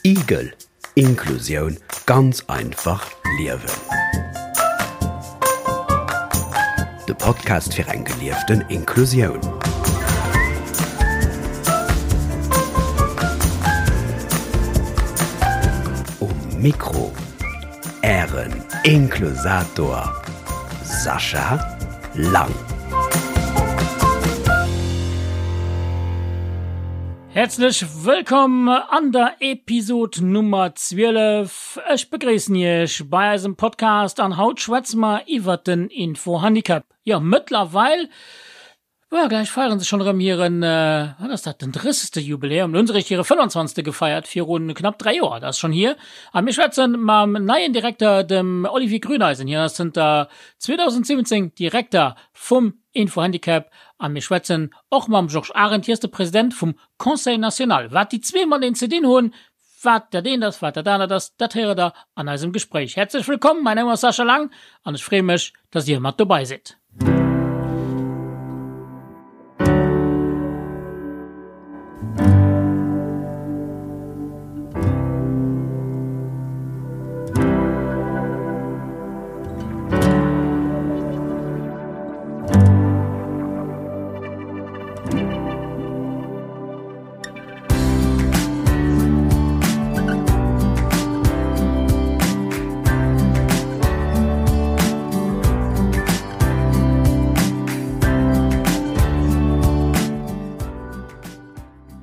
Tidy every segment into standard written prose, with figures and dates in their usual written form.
Igel, Inklusioun ganz einfach liewen. De Podcast fir eng gelieften Inklusioun. Um Mikro Ären Inklusator Sascha Lang. Häerzlech wëllkomm an der Episod Nummer 12. Ech begréissen Iech bei eisem Podcast an haut schwätze mer iwwert den Infohandicap. Jo, mëttlerweil Jo, gläich feieren se schonn erëm hiren, wat ass dat, den drëssegste Jubiläum. Lo hunn se eréischt hire 25. gefeiert, viru knapp 3 Joer, dat ass schonn hier. A mir schwätze mam neien Direkter, dem Olivier Grüneisen. Hien ass zënter 2017 Direkter vum Infohandicap. A mir schwätzen och mam Georges Arendt, hie ass de President vum Conseil national. Wat déi zwee mateneen ze dinn hunn, wat dat eent ass, wat dat anert ass, dat héiert der an eisem Gespréich. Häerzlech wëllkomm, mäin Numm ass Sascha Lang an ech freeë mech, dass Dir mat dobei sidd.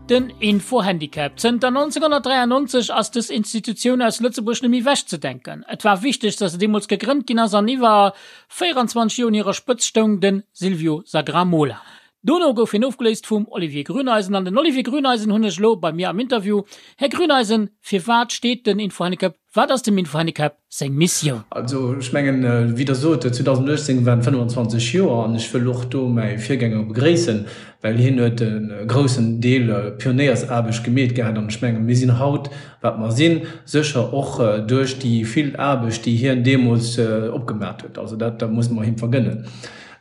Den Info-Handicap. Zënter 1993 ass dës Institutioun aus Lëtzebuerg net méi wechzedenken. Et war wichteg, datt se deemools gegrënnt ginn ass an iwwer 24 Joer un hirer Spëtzt stoung de Silvio Sagramola. Dono gouf hien ofgeléist vum Olivier Grüneisen. An den Olivier Grüneisen hunn ech elo bei mir am Interview. Här Grüneisen, firwat steet den Infohandicap, wat ass dem Infohandicap seng Missioun? Also ech mengen, wéi Der sot, 2018 waren 25 Joer an ech wëll och do mäi Virgänger begréissen, well hien huet e groussen Deel Pionéiersaarbecht gemeet gehat an ech mengen, mir sinn haut, wat mer sinn, sécher och duerch déi vill Aarbecht, déi hien deemools opgemat huet. Also dat muss mer him vergënnen.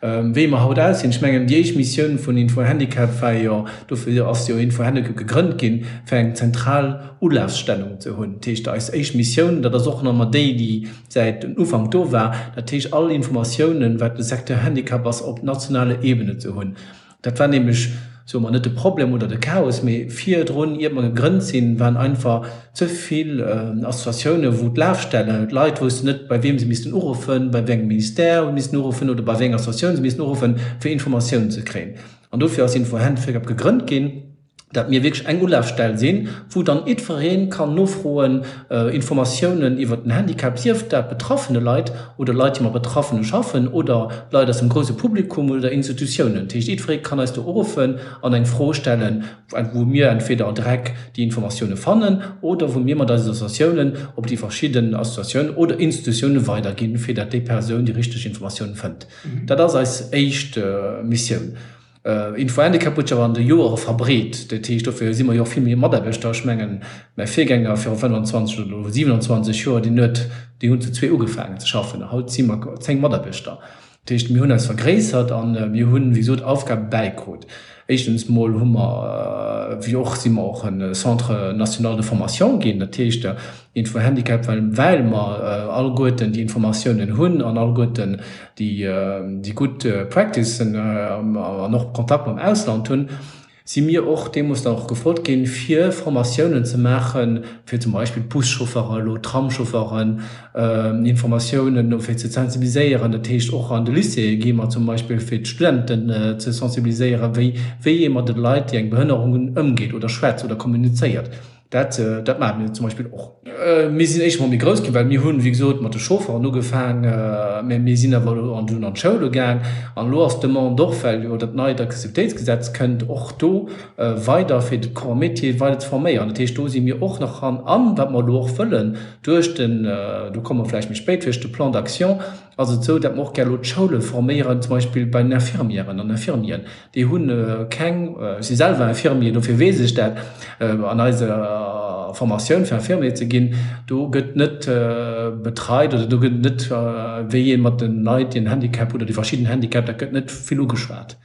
Wéi mer haut aussinn, ech mengen, déi éischt Missioun vun Info-Handicap war jo, dofir ass jo Info-Handicap gegrënnt ginn, fir eng zentral Ulafstellung ze hunn. Dat heescht, eis éischt Missioun, dat ass och nach ëmmer déi, déi säit den Ufank do war, dat heescht all Informatiounen, wat de Secteur Handicap ass, op nationaler Ebene ze hunn. Dat war nämlech, soe mer, net de Problem oder de Chaos, mee virdrun, iert mer gegrënnt sinn, waren einfach ze vill Associatiounen, wou d'Lafstellen, d'Leit woussten net, bei wiem se missten uruffen, bei wéi engem Ministère se missten uruffen oder bei wéi enger Associatioun se missten uruffen, fir Informatiounen ze kréien. An dofir ass Info-Handicap gegrënnt ginn. dat mir wierklech eng Ulafstell sinn, wou dann jiddweree kann nofroen, Informatiounen iwwert den Handicap, sief dat betraffene Leit oder Leit, déi mat Betraffene schaffen oder Leit aus dem grouse Publikum oder Institutiounen. Dat heescht, jiddweree kann eis do uruffen an eng Fro stellen, wou mir entweder direkt déi Informatioune fannen oder wou mir mat eisen Associatiounen op déi verschidden Associatiounen oder Institutioune weiderginn, fir dat déi Persoun déi richteg Informatioun fënnt. Dat ass eis éischt Missioun. Info-Handicap huet sech awer an de Joere verbreet. Dat heescht, dofir si mer jo och vill méi Mataarbechter. Ech mengen, mäi Virgänger viru 25 oder elo 27 Joer, deen huet, déi hunn zu zwee ugefaangen ze schaffen. Haut si mer 10 Mataarbechter. Dat heescht, mir hunn eis vergréissert a mir hunn, wéi gesot, Aufgabe bäikrut. Éischtens mol hu mer, wéi och, si mer och e Centre national de formation ginn. Dat heescht, Info-Handicap, well well mer alleguerten déi Informatiounen hunn an alleguerten déi déi gutt Practicen an och Kontakt mam Ausland hunn, si mir och deemools dann och gefrot ginn, fir Formatiounen ze maachen, fir zum Beispill d'Buschauffere elo, d'Tramschaufferen, Informatiounen fir ze sensibiliséieren. Dat heescht, och an de Lycéeë gi mer zum Beispill, fir d'Studenten ze sensibiliséieren, wéi wéi ee mat de Leit, déi eng Behënnerung hunn, ëmgeet oder schwätzt oder kommunizéiert. Dat, dat maache mir zum Beispill och. Mir sinn éischt emol méi grouss ginn, well mir hunn, wéi gesot, mat de Chaufferen ugefaang, mä mir sinn awer elo an dunn an d'Schoule gaang. An elo ass d'Demande och, well jo dat neit Accessibilitéitsgesetz kënnt, och do weider fir de Corps métier weider ze forméieren. Dat heescht, do si mir och nach dran. An wat mer elo och wëllen duerch den, do komme mer vläicht méi spéit, duerch de Plan d'action, ass et esou, datt mer och gär elo d'Schoule forméieren, zum Beispill bei den Infirmièren an Infirmieren. Déi hu keng, ech si selwer Infirmier, dofir weess ech dat, an eiser Formatioun fir Infirmier ze ginn, do gëtt net betreit oder do gëtt net, wéi ee mat de Leit, déi en Handicap hunn oder déi verschidden Handicap, dat gëtt net vill ugeschwat.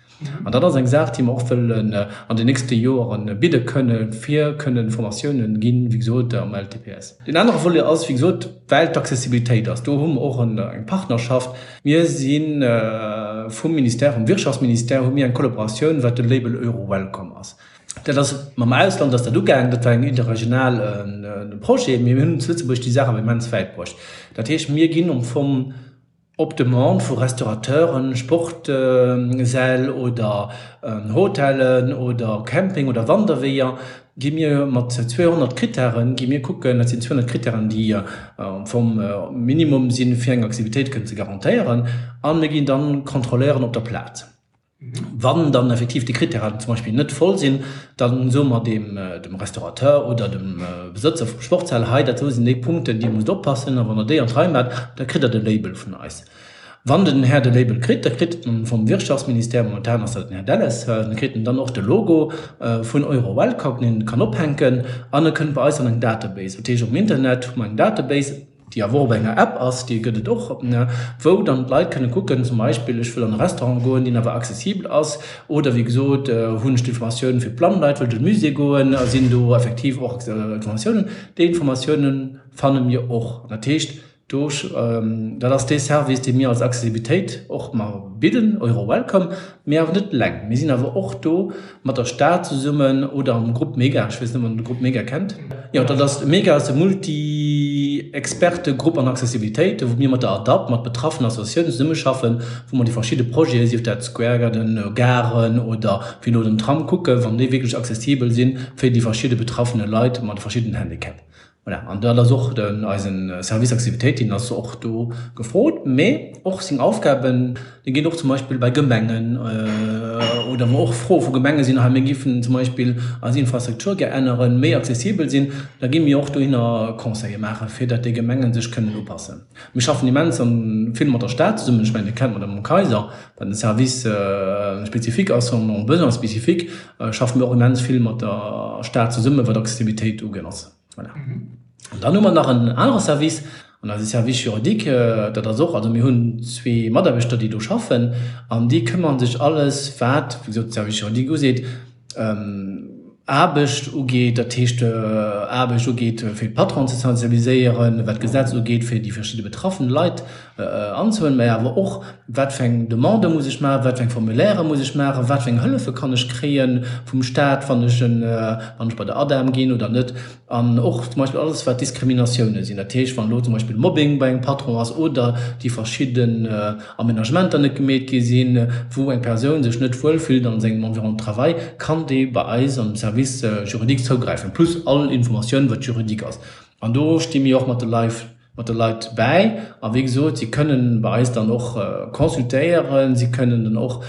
An dat ass eng Saach, déi mer och wëllen an den nächste Joere bidde kënnen, fir kënnen Formatiounen ginn, wéi gesot, am LTPS. Deen anere Volet ass, wéi gesot, well d'Accessibilitéit ass, do hu mer och eng Partnerschaft. Mir si vum Ministère, vum Wirtschaftsministère hu mir eng Kollaboratioun, wat de Label Euro-Welcome ass. Dat ass mam Ausland ass dat ugaangen, dat war eng interregional Projet, mee mir hunn zu Lëtzebuerg déi Saach awer immens wäit bruecht. Dat heescht, mir ginn am Fong op Demande vu Restaurateuren, Sportsäll oder Hotellen oder Camping oder Wanderweeër, gi mir mat 200 Krittären, gi mir kucken, dat sinn 200 Krittären, déi am Fong Minimum sinn, fir eng Aktivitéit kënnen ze garantéieren, a mir ginn dann kontrolléieren op der Plaz. Wann dann effektiv déi Krittären zum Beispill net voll sinn, da soe mer dem dem Restaurateur oder dem Besëtzer vum Sportshal, hei dat do sinn déi Punkten, déi musst oppassen a wann der déi an d'Rei maacht, da kritt der de Label vun eis. Wann den Här de Label kritt, da kritt en vum Wirtschaftsministère, momentan ass dat den Här Delles, da kritt en dann och de Logo vun EuroWelcome, deen en kann ophänken an e kënnt bei eis an eng Database. Dat heescht um Internet hu mer eng Database, déi awer och op enger App ass, déi gëtt et och, wou dann d'Leit kënne kucken, zum Beispill, ech wëll an e Restaurant goen, deen awer accessibel ass, oder wéi gesot, hunn ech d'Informatioun fir d'blann Leit, wëll ech an de Musée goen, sinn do effektiv och Informatiounen. Déi Informatiounen fanne mir och. Dat heescht, do, dat ass dee Service, dee mir als Accessibilitéit och mar bidden, EuroWelcome, mee awer net eleng. Mir sinn awer och do mat der Stad zesummen oder am Grupp Mega, ech weess net, ob der de Grupp Mega kennt. Jo, dat ass, Mega ass de Multi-Experte-Grupp an Accessibilitéit, wou mir mat der ADAPT, mat betraffenen Associatiounen zesummeschaffen, wou mer déi verschidde Projeten, sief dat Square Garden, Garen oder wéi elo den Tram, kucken, wann déi wierklech accessibel sinn fir déi verschidde betraffene Leit mat de verschiddenen Handicap. Voilà, an dat ass och den, eisen Service Accessibilitéit, deen ass och do gefrot, mee och seng Aufgaben, déi ginn och zum Beispill bei Gemengen oder wou och Froe vu Gemenge sinn, hei mir géifen zum Beispill eis Infrastruktur gär änneren, méi accessibel sinn, da gi mir och dohinner Conseile maachen, fir datt déi Gemengen sech kënnen upassen. Mir schaffen immens vill mat der Stad zesummen, ech mengen Dir kennt d'Madame Kayser, wat en Service spécifique ass, en besoin spécifique, schaffe mir och immens vill mat der Stad zesummen, wat Accessibilitéit ugeet. Voilà. An dann hu mer nach en anere Service, an eise Service juridique, dat ass och, also mir hunn zwee Mataarbechter, déi do schaffen, an déi këmmere sech alles, wat, wéi gesot, de Service juridique useet, Aarbecht ugeet, dat heescht Aarbecht ugeet, fir d'Patronen ze sensibiliséieren, wat d'Gesetz ugeet, fir déi verschidde betraffen Leit anzehuelen, mä awer och, wat fir eng Demande muss ech maachen, wat fir eng Formulairë muss ech maachen, wat fir eng Hëllefe kann ech kréie vum Staat, wann ech en, wann ech bei der ADEM ginn oder net. An och zum Beispill alles, wat Diskriminatiounen sinn, dat heescht, wann elo zum Beispill Mobbing bei engem Patron ass oder déi verschidden Aménagementer net gemeet gi sinn, wou eng Persoun sech net wuel fillt an sengem Environnement de travail, kann déi bei eis am Service juridique zougräifen, plus all Informatioun, wat juridique ass. An do sti mir och mat de Leit mat de Leit bäi. A wéi gesot, si kënnen bei eis dann och consultéieren, si kënnen dann och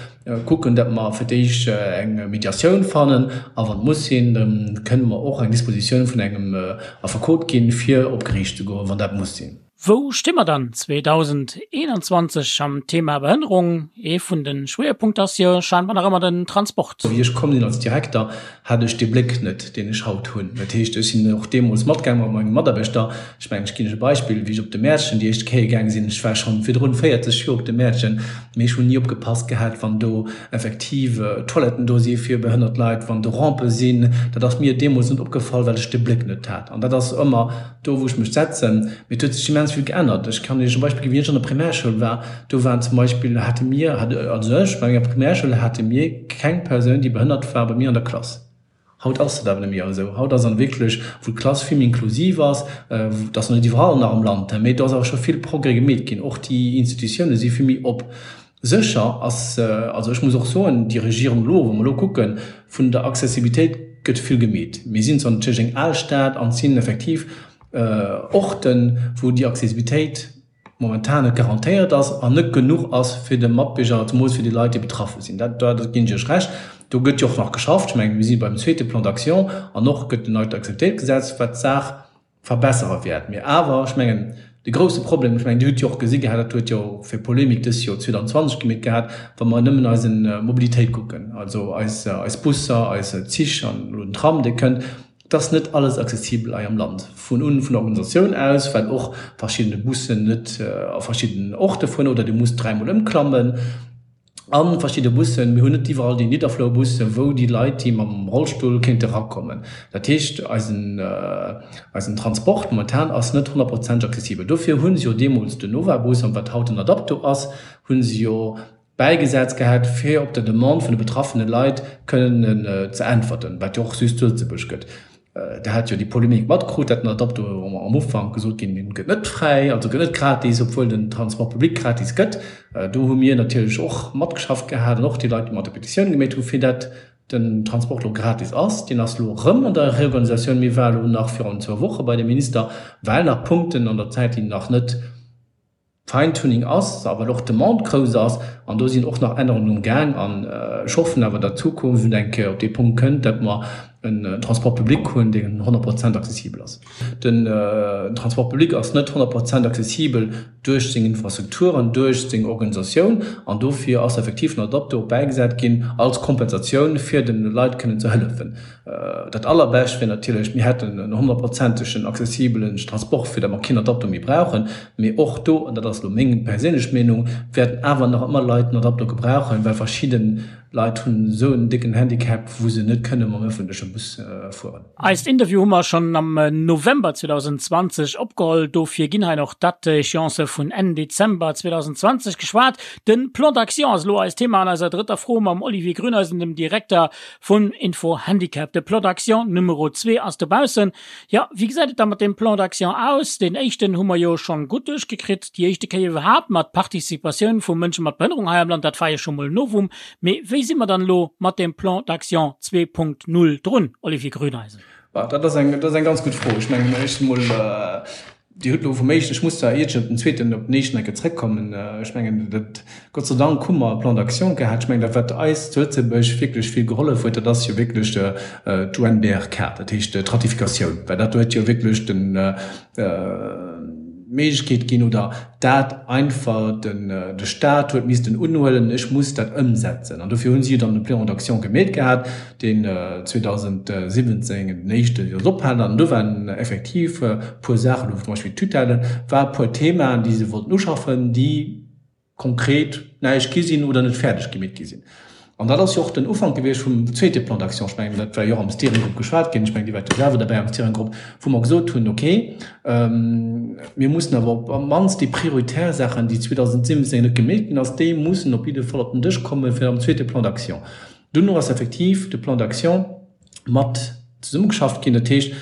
kucken, datt mer fir d'éischt eng Mediatioun fannen a wann et muss sinn, da kënnen mer och eng Dispositioun vun engem Affekot ginn, fir op Geriicht ze goen, wann dat muss sinn. Wou sti mer dann 2021 am Thema Behënnerung? Ee vun de Schwéierpunkter ass jo scheinbar nach ëmmer den Transport. Wéi ech komm sinn als Direkter, hat ech dee Bléck net, deen ech haut hunn. Dat heescht, ech sinn och deemools matgaang mat menge Mataarbechter. Ech mengen, ech ginn lech e Beispill, Wéi ech op de Mäertchen déi éischt Kéier gaange sinn, ech war schonn virdrun 40 Joer op de Mäertchen, mee ech hunn ni opgepasst gehat, wann do effektiv Toiletten do si fir behënnert Leit, wann do Rampe sinn. Dat ass mir deemools net opgefall, well ech de Bléck net hat. An dat ass ëmmer do, wou ech mech setzen. Mee et huet sech immens vill geännert. Ech kann Iech e Beispill ginn, Wéi ech an der Primärschoul war, do waren zum Beispill, hate mir, also ech, bei menger Primärschoul hate mir keng Persoun, déi behënnert war, bei mir an der Klass. Haut ass dat awer net méi esou. Haut ass an wierklech, wou d'Klass vill méi inklusiv ass, dat ass nach net iwwerall nach am Land, mee do ass awer scho vill Progrès gemeet ginn. Och déi Institutioune si vill méi op. Sécher ass, also ech muss och soen, déi Regierung elo, wa mer elo kucken, vun der Accessibilitéit gëtt vill gemeet. Mir sinn zwar natierlech eng al Stad an et sinn effektiv Orten, wou déi Accessibilitéit momentan net garantéiert ass an net genuch ass fir de Matbierger, zemools fir déi Leit, déi betraffe sinn. Dat, dat ginn ech Iech Recht. Do gëtt jo och nach geschafft. Ech mengen, mir si beim zweete Plan d'action an och gëtt en neit Accessibilitéitsgesetz, wat d'Saach verbessere wäert. Mee awer, ech mengen, de grouse Problem, ech mengen, Dir hutt jo och gesi gehat, dat huet jo fir Polemik dës Joer 2020 gemeet gehat, wa mer nëmmen eise Mobilitéit kucken, also eis, eis Busser, eis Zich an elo den Tram, dee kënnt, Et ass net alles accessibel hei am Land, vun un vun der Organisatioun aus, well och verschiddene Bussen net a verschiddenen Orte fueren oder Dir musst dräimol ëmklammen. A verschidde Bussen, mir hunn net iwwerall déi Nidderflourbussen, wou déi Leit, déi mam Rollstull kéinte rakommen. Dat heescht, eisen, eisen Transport momentan ass net honnertprozenteg accessibel. Dofir hu se jo deemools den Nova-Bus, an wat haut den Adapto ass, hu se jo bäigesat gehat, fir op der Demande vun de betraffene Leit kënnen ze äntwerten, wat jo och just zu Lëtzebuerg gëtt. Der hat jo déi Polemik matkrut, dat den Adapto am Ufank gesot ginn, deen gëtt net fräi, also gëtt net gratis, obwuel den Transport public gratis gëtt. Do hu mir natierlech och matgeschafft gehat an och déi Leit, déi mat der Petitioun gemeet hu fir dat den Transport elo gratis ass. Deen ass elo erëm an der Reorganisatioun. Mir war elo nach virun zwou Woche bei dem Minister, well nach Punkten an der Zäit, déi nach net, Fine-Tuning ass, a well och d'Demande grouss ass, an do sinn och nach Ännerungen um Gaang. An ech hoffen awer, datt d'Zukunft eng Kéier op dee Punkt kënnt, datt mer en Transport public hunn, deen 100 Prozent accessibel ass. Den Transport public ass net 100 Prozent accessibel duerch seng Infrastrukturen, duerch seng Organisatioun, an dofir ass effektiv den Adapto bäigesat ginn als Kompensatioun, fir de Leit kënnen ze hëllefen. Dat allerbescht wier natierlech, mir hätten en honnertprozentegen accessibelen Transport, fir datt mer keen Adapto méi brauchen. Mee och do, an dat ass elo meng perséinlech Meenung, wäerten awer nach ëmmer Leit en Adapto gebrauchen, well verschidde Leit hunn esou en décken Handicap, wou se net kënne mam ëffentleche Bus fueren. Eist Interview hu mer schonn am November 2020 opgeholl, dofir ginn hei nach d'Date-échéancë vun Enn Dezember 2020 geschwat. De Plan d'action ass elo eist Thema an eiser drëtter Fro mam Olivier Grüneisen, dem Direkter Vun Info Handicap. De Plan d'action Numero 2 ass dobaussen. Jo, wéi gesäit et da mat deem Plan d'action aus? Deen éischten hu mer jo schonn gutt duerchgekritt, déi éischte Kéier iwwerhaapt mat Participatioun vu Mënsche mat Behënnerung hei am Land, dat war jo scho mol e Novum. Mee wéi si mer dann elo mat deem Plan d'action 2.0 drun, Olivier Grüneisen? Dat ass eng, dat ass eng ganz gutt Fro. Ech mengen, éischt emol, Dir hutt elo vum éischten, ech muss zwar iert ech op den zweeten, op den éischten eng Kéier zrëckkommen, ech mengen, dat, Gott sei Dank hu mer e Plan d'action gehat. Ech mengen, dat wat eis zu Lëtzebuerg wierklech vill gehollef huet, dat ass jo wierklech d'UNBRK, dat heescht d'Ratifikatioun, well dat huet jo wierklech den, d'Méiglechkeet ginn oder dat einfach den, de Stat huet missten unhuelen, ech muss dat ëmsetzen. An dofir hu si jo dann e Plan d'action gemeet gehat, deen 2017 den éischte jo ophalen an do waren effektiv e puer Saachen, do zum Beispill d'Tutelle war e puer Themaen, déi se wollten uschaffen, déi konkret näischt gi sinn oder net fäerdeg gemeet gi sinn. An dat ass jo och den Ufank gewiescht vum zweete Plan d'action. Ech mengen, dat war jo och am Steering Group geschwat ginn, ech mengen, Dir waart jo selwer derbäi am Steering Group, wou mer gesot hunn, okay, mir mussen awer op d'mannst déi prioritär Saachen, déi 2017 net gemeet ginn ass, déi mussen op jidde Fall op den Dësch komme fir am zweete Plan d'action. Duerno ass effektiv de Plan d'action mat zesummegeschafft ginn. Dat heescht,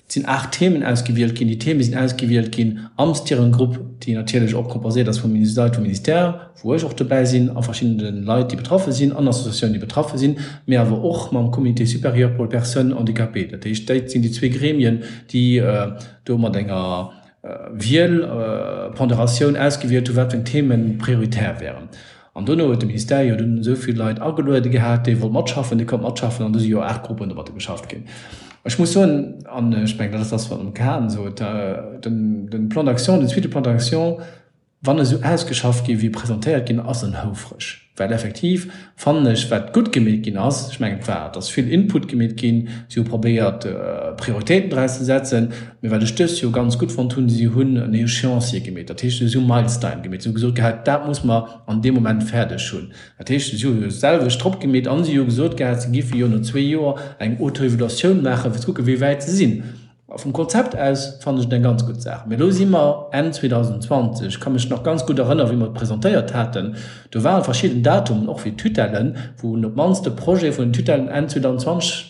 et sinn 8 Themen ausgewielt ginn. Déi Theme sinn ausgewielt ginn am Steering Group, déi natierlech och composéiert ass vu Leit vum Ministère, wou ech och dobäi sinn, a verschiddene Leit, déi betraffe sinn, an Associatiounen, déi betraffe sinn, mee awer och mam Comité supérieur pour les personnes handicapées. Dat heescht, dat sinn déi zwee Gremien, déi do mat enger Wiel, Ponderatioun ausgewielt hunn, wat fir eng Themen prioritär wären. An dono huet de Ministère jo dunn esou vill Leit ageluede gehat, déi wollt matschaffen, déi konnt matschaffen, an du si jo 8 Gruppen domatter geschafft ginn. Ech muss soen, an ech mengen, dat ass dat, wat den Kahn sot, den, den Plan d'action, den zweete Plan d'action, wann esou ausgeschafft gi wéi presentéiert ginn ass, en houfreg. Well effektiv fannen ech, wat gutt gemeet ginn ass, ech mengen, et war, et ass vill Input gemeet ginn, si hu probéiert, Prioritéiten draus ze setzen, mee wat ech dëst Joer ganz gutt fonnt hunn, si hunn en Échéancier gemeet, dat heescht, si hu Milestine gemeet, si hu gesot gehat, dat muss mer an deem Moment fäerdeg hunn. Dat heescht, si hu jo d'selwecht drop gemeet an si hu gesot gehat, si géife jo no zwee Joer eng Autoevaluatioun maachen, fir ze kucken, wéi wäit se sinn. A vum Konzept aus fannen ech et eng ganz gutt Saach. Mee elo si mer Enn 2020. Ech ka mech nach ganz gutt erënneren, wéi mer et presentéiert haten. Do ware verschidden Datumen, och fir d'Tutellen, wou een op d'mannst de Projet vun den Tutellen Enn 2020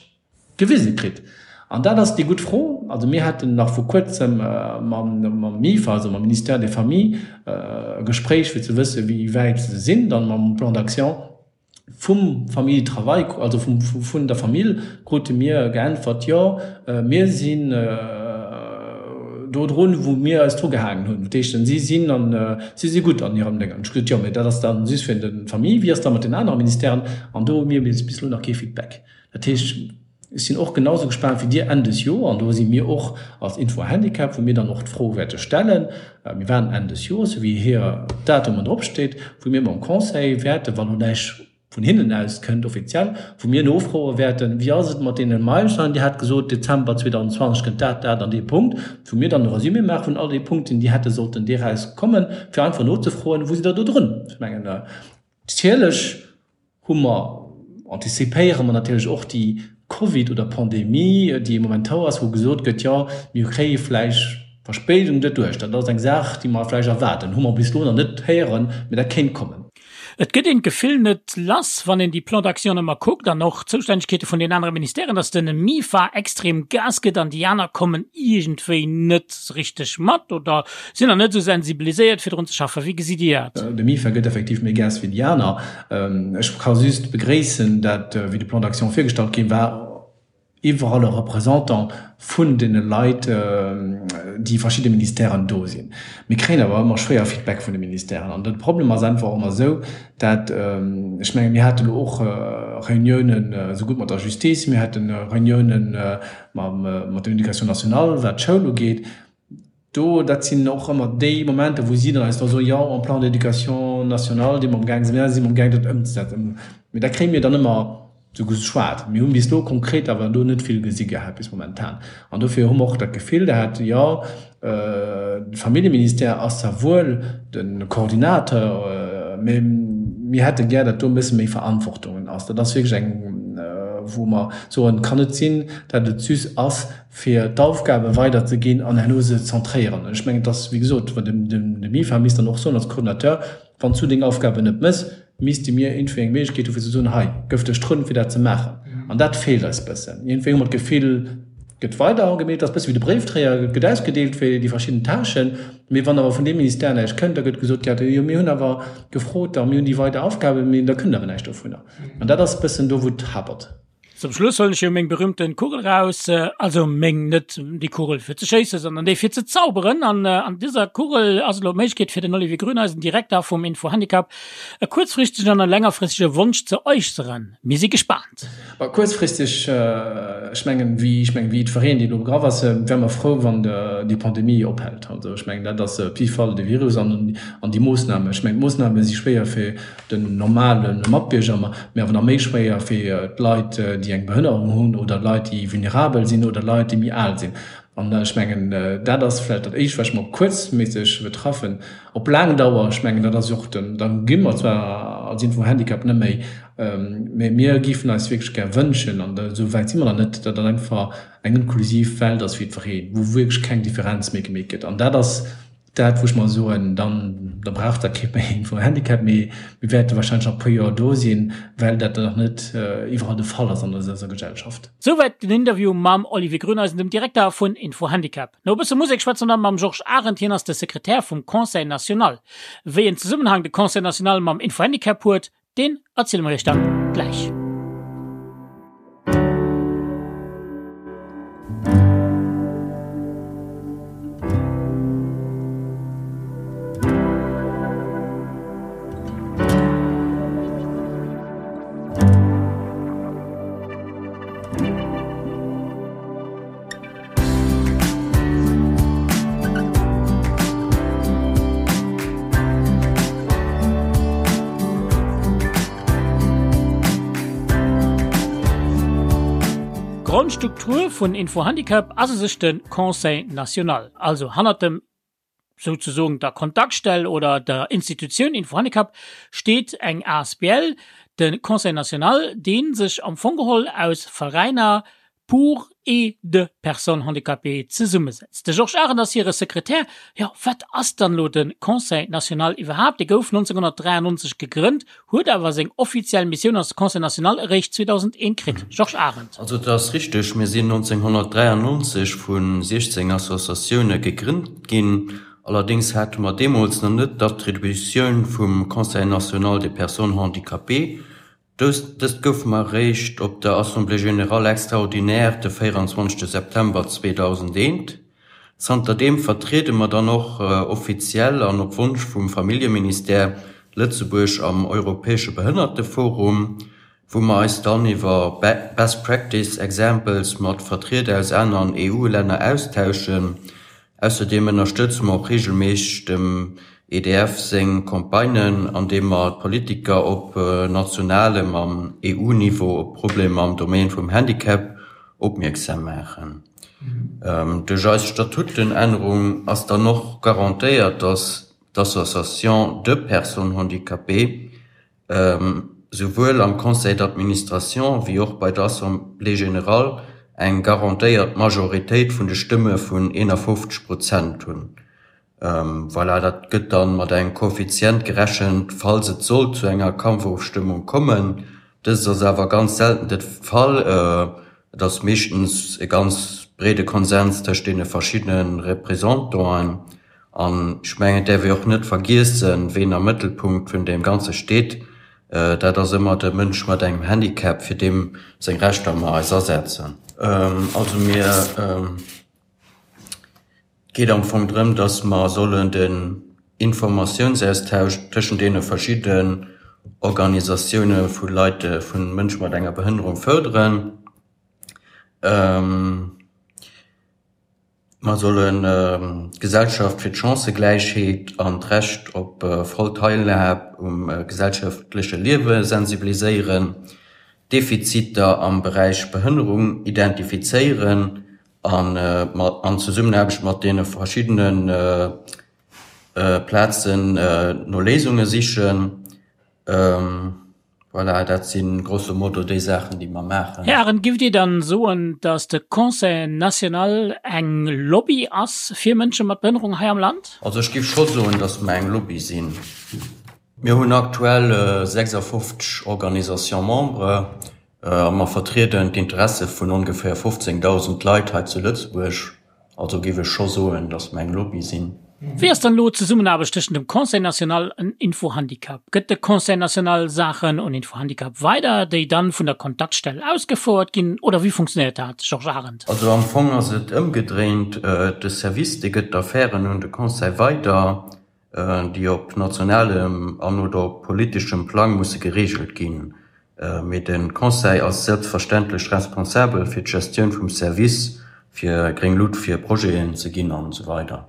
gewise kritt. An dat ass déi gutt Fro. Also mir haten nach vor kuerzem mam MIFA, also mam Ministère des Familles, e Gespréich, fir ze wëssen, wéi wäit se sinn dann mam Plan d'action. Vum Famille Travail, also vum, vun der Famill krute mir geäntwert, jo, mir sinn do drun, wou mir eis dru gehaangen hunn. Dat heescht, si sinn an, si si gutt an hirem Déngen. Ech gesot, jo, mee dat ass dann just fir de Famille, wéi ass da mat den anere Ministèren? An do hu mir bis elo nach kee Feedback. Dat heescht, ech sinn och genau esou gespaant wéi Dir Enn des Joer, an do si mir och als Info Handicap, wou mir dann och d'Fro wäerte stellen, mir waarden Enn des Joers, esou wéi hir Datumen dropsteet, wou mir mam Conseil wäerten, wann elo näischt vun hinnen aus kënnt offiziell, wou mir nofroe wäerten, wéi ass et mat deene Meilensteinen, Dir hat gesot, Dezember 2020 kënnt dat, dat an dee Punkt, wou mir dann e Resumé maache vun all deene Punkten, déi hätte sollten deraus kommen, fir einfach nozefroen, wou sidd Der do drun? Ech mengen. Natierlech hu mer, antizipéiere mer natierlech och déi Covid oder Pandemie, déi momentan ass, wou gesot gëtt, jo mir kréie vläicht Verspéidung doduerch. Dat ass eng Saach, déi mer vläicht erwaarden. Hu mer bis elo nach net héieren, mee dat kéint kommen. Et gëtt een d'Gefill net lass, wann een déi Plans d'action ëmmer kuckt an och d'Zoustännegkeete vun den anere Ministèren, datt den MIFA extrem Gas gëtt an déi aner kommen iergendwéi net richteg mat oder sinn nach net esou sensibiliséiert fir drun ze schaffen. Wéi gesitt Dir dat? De MIFA gëtt effektiv méi Gas wéi déi aner. Ech ka just begréissen, dat wéi de Plan d'action virgestallt ginn war, iwwerall e Représentant vun deene Leit, déi verschidde Ministèren do sinn. Mir kréien awer ëmmer schwéier Feedback vun de Ministèren. An de Problem ass einfach och ëmmer esou, dat, ech menge mir hate lo och Reuniounen esougutt mat der Justice, mir hate Reuniounen mat der Éducation nationale, wat d'Schoul ugeet, Do, dat sinn och ëmmer déi Momenter, wou si dann eis da soen, jo, en Plan d'éducation nationale, dee mer amgaang sinn, si mer amgaang dat ëmzesetzen. Mee dat kréie mir dann ëmmer esou geschwat. Mir hunn bis elo konkret awer do net vill gesi gehat bis momentan. An dofir hu mer och dat Gefill gehat, jo, de Familljeministère ass zwar wuel de Coordinateur, mee mir hätte gär, datt do e bësse méi Verantwortungen ass. Dat ass wierklech eng, wou mer soen, et kann net sinn, datt et just ass, fir d'Aufgabe weiderzeginn an herno se zentréieren. Ech mengen, et ass, wéi gesot, de MIFA misst dann och soen als Coordinateur, Wann s du deng Aufgaben net méchs, misste mir iergendwéi eng Méiglechkeet hu fir ze soen, hei gëff dech drun, fir dat ze maachen. An dat feelt eis bëssen. Iergendwéi hu mer d'Gefill, et gëtt weider gemeet, et ass bësse wéi de Bréifdréier, et gëtt ausgedeelt fir déi verschidden Tâchen, mee wann awer vun deem Ministère näischt kënnt, da gëtt gesot, jo mir hunn awer gefrot a mir hunn déi weider Aufgaben, mee da kënnt awer näischt dovunner. An dat ass bëssen do, wou et hapert. Zum Schluss huelen ech jo meng berühmten Kugel raus, also meng, net déi Kugel fir ze schéissen, sondern déi fir ze zauberen. An an dëser Kugel ass elo d'Méiglechkeet fir den Olivier Grüneisen, Direkter vum Info-Handicap, e kuerzfristegen an e längerfristege Wonsch ze äusseren. Mir si gespaant. Bah, kuerzfristeg, ech mengen, wéi, ech mengen, wéi jiddwereen, deen do begraff ass, wäre mer frou, wann déi Pandemie ophält. Also ech mengen, dat ass op jidde Fall de Virus an an déi Moossnamen. Ech mengen, d'Moossname si schwéier fir den normale Matbierger, mee awer nach méi schwéier fir d'Leit, déi eng Behënnerung hunn oder Leit, déi vulnerabel sinn oder Leit, déi méi al sinn. An ech mengen, dat ass vläicht dat Éischt, wat ech mer kuerzméisseg betraffen. Op laang Dauer, ech mengen, dat ass jo och den, da gi mer zwar als Info-Handicap net méi, mee mir géifen eis wierklech gär wënschen, an esou wäit si mer nach net, datt dat einfach eng inklusiv Welt ass fir jiddwereen, wou wierklech keng Differenz méi gemeet gëtt. An dat ass Dat, wou ech mer soen, dann, da brauch dat kee méi vum Handicap, mee mir wäerte wahrscheinlech nach e puer Joer do sinn, well dat nach net iwwerall de Fall ass an eiser Gesellschaft. Souwäit den Interview mam Olivier Grüneisen, dem Direkter vun Info-Handicap. No e bësse Musek schwätze mer dann mam Georges Arendt, hien ass de Sekretär vum Conseil national. Wéi en Zesummenhang de Conseil national mam Info-Handicap huet, Deen erziele mer iech dann gläich. D'Grondstruktur vun Info-Handicap ass u sech de Conseil national, also hannert dem souzesoen der Kontaktstell oder der Institutioun Info-Handicap steet eng asbl, de Conseil national, dee sech am Fong geholl aus Veräiner, pour et de personnes handicapées zesummesetzt. De Georges Arendt ass hire Sekretär. Jo, wat ass dann elo de Conseil national iwwerhaapt? Dee gouf 1993 gegrënnt, huet awer seng offiziell Missioun als Conseil national eréischt 2001 kritt. Georges Arendt. Also et ass richteg, mir sinn 1993 vu 16 Associatioune gegrënnt ginn. Allerdéngs hate mer deemools nach net d'Attributioun vum Conseil national des personnes handicapées. Dëst gouf mer eréischt op der Assemblée générale extraordinaire de 24 September 2001. Zanterdeem vertriede mer dann och offiziell an op Wonsch vum Familljeministère Lëtzebuerg am Europäesche Behënnerteforum, wou mer eis dann iwwer Best Practice Examples mat Vertrieder aus aneren EU-Länner austauschen. Ausserdeem ënnerstëtze mer och reegelméisseg dem EDF seng Campagnen, andeem mer d'Politiker op nationalem an EU-Niveau op Problemer am Domaine vum Handicap opmierksam maachen. Duerch eis Statutenännerung ass dann och garantéiert, dass d'Association de personnes handicapées. Souwuel am Conseil d'administration wéi och bei der Assemblée générale eng garantéiert Majoritéit vun de Stëmme vun 51 Prozent hunn. Voilà, dat gëtt dann mat engem Koeffizient gerechent, falls et sollt zu enger Kampfofstëmmung kommen. Dëst ass awer ganz selten de Fall. Et ass meeschtens e ganz breede Konsens tëscht deene verschiddene Représentanten. An ech mengen, et däerf ee och net vergiessen, ween am Mëttelpunkt vun deem Ganze steet. Dat ass ëmmer de Mënsch mat engem Handicap, fir deem seng Rechter mer eis asetzen. Also mir, et geet am Fong drëm, dass mer sollen den Informatiounsaustausch tëschent deene verschidden Organisatioune vu Leit, vu Mënsche mat enger Behënnerung fërderen. Mer sollen d'Gesellschaft fir d'Chancëgläichheet an d'Recht op voll Teilhab um gesellschaftleche Liewe sensibiliséieren, Defiziter am Beräich Behënnerung identifizéieren an an Zesummenaarbecht mat deene verschiddene Plazen no Léisunge sichen. Voilà, dat si grosso modo déi Saachen, déi mer maachen. Här Arendt, giff Dir dann soen, datt de Conseil national eng Lobby ass fir Mënsche mat Behënnerung hei am Land? Also ech giff scho soen, datt mer eng Lobby sinn. Mir hunn aktuell 56 Organisations membres a mer vertrieden d'Interesse vun ongeféier 15.000 Leit hei zu Lëtzebuerg. Also géif ech scho soen, datt mer eng Lobby sinn. Wéi ass dann elo d'Zesummenaarbecht tëschent dem Conseil national an Info-Handicap? Gëtt de Conseil national Saachen un Info-Handicap weider, déi dann vun der Kontaktstell ausgefouert ginn, oder wéi funktionéiert dat, Georges Arendt? Also am Fong ass et ëmgedréint, De Service, dee gëtt d'Affären un de Conseil weider, déi op nationalem an oder op politeschem Plang musse gereegelt ginn. Mee de Conseil ass selbstverständlech responsabel fir d'Gestioun vum Service, fir gréng Lut fir Projeten ze ginn an esou weider.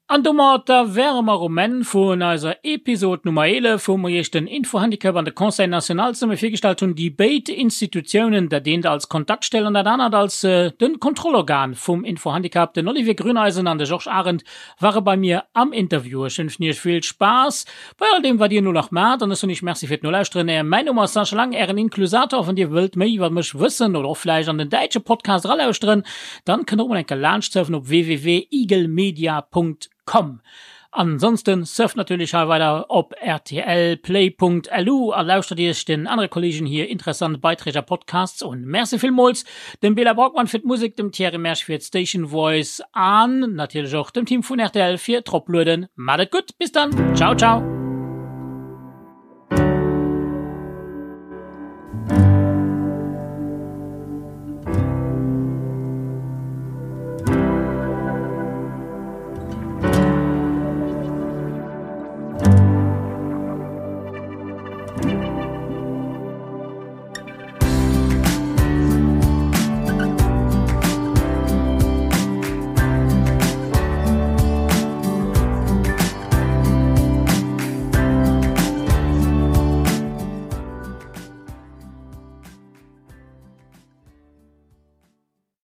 An domatter wäre mer um Enn vun eiser Episod Nummer 11, wou mer Iech den Infohandicap an de Conseil national zesumme virgestallt hunn, déi béid Institutiounen, dat eent als Kontaktstell an dat anert als de Kontrollorgan vum Infohandicap. Den Olivier Grüneisen an de Georges Arendt ware bei mir am Interview. Ech wënschen iech vill Spaass bei all deem wat dir elo nach maacht an ech soen iech Merci fir d'Nolauschteren. Mäin Numm ass Sascha Lang, ären Inklusator. Wann dir wëllt méi iwwer mech wëssen oder och vläicht an den däitsche Podcast eralauschteren, dann kënnt der och mol eng Kéier laanscht surfen op www.igelmedia.com. Ansonsten surft natierlech hei weider op rtlplay.lu a lauschtert iech den anere Kollegen hir interessant Beiträg a Podcasts un. Merci villmools dem Bela Braukmann fir d'Musek, dem Thierry Mersch fir d'Station Voice an natierlech och dem Team vun rtl fir d'Roplueden. Maat et gutt, bis dann, ciao ciao!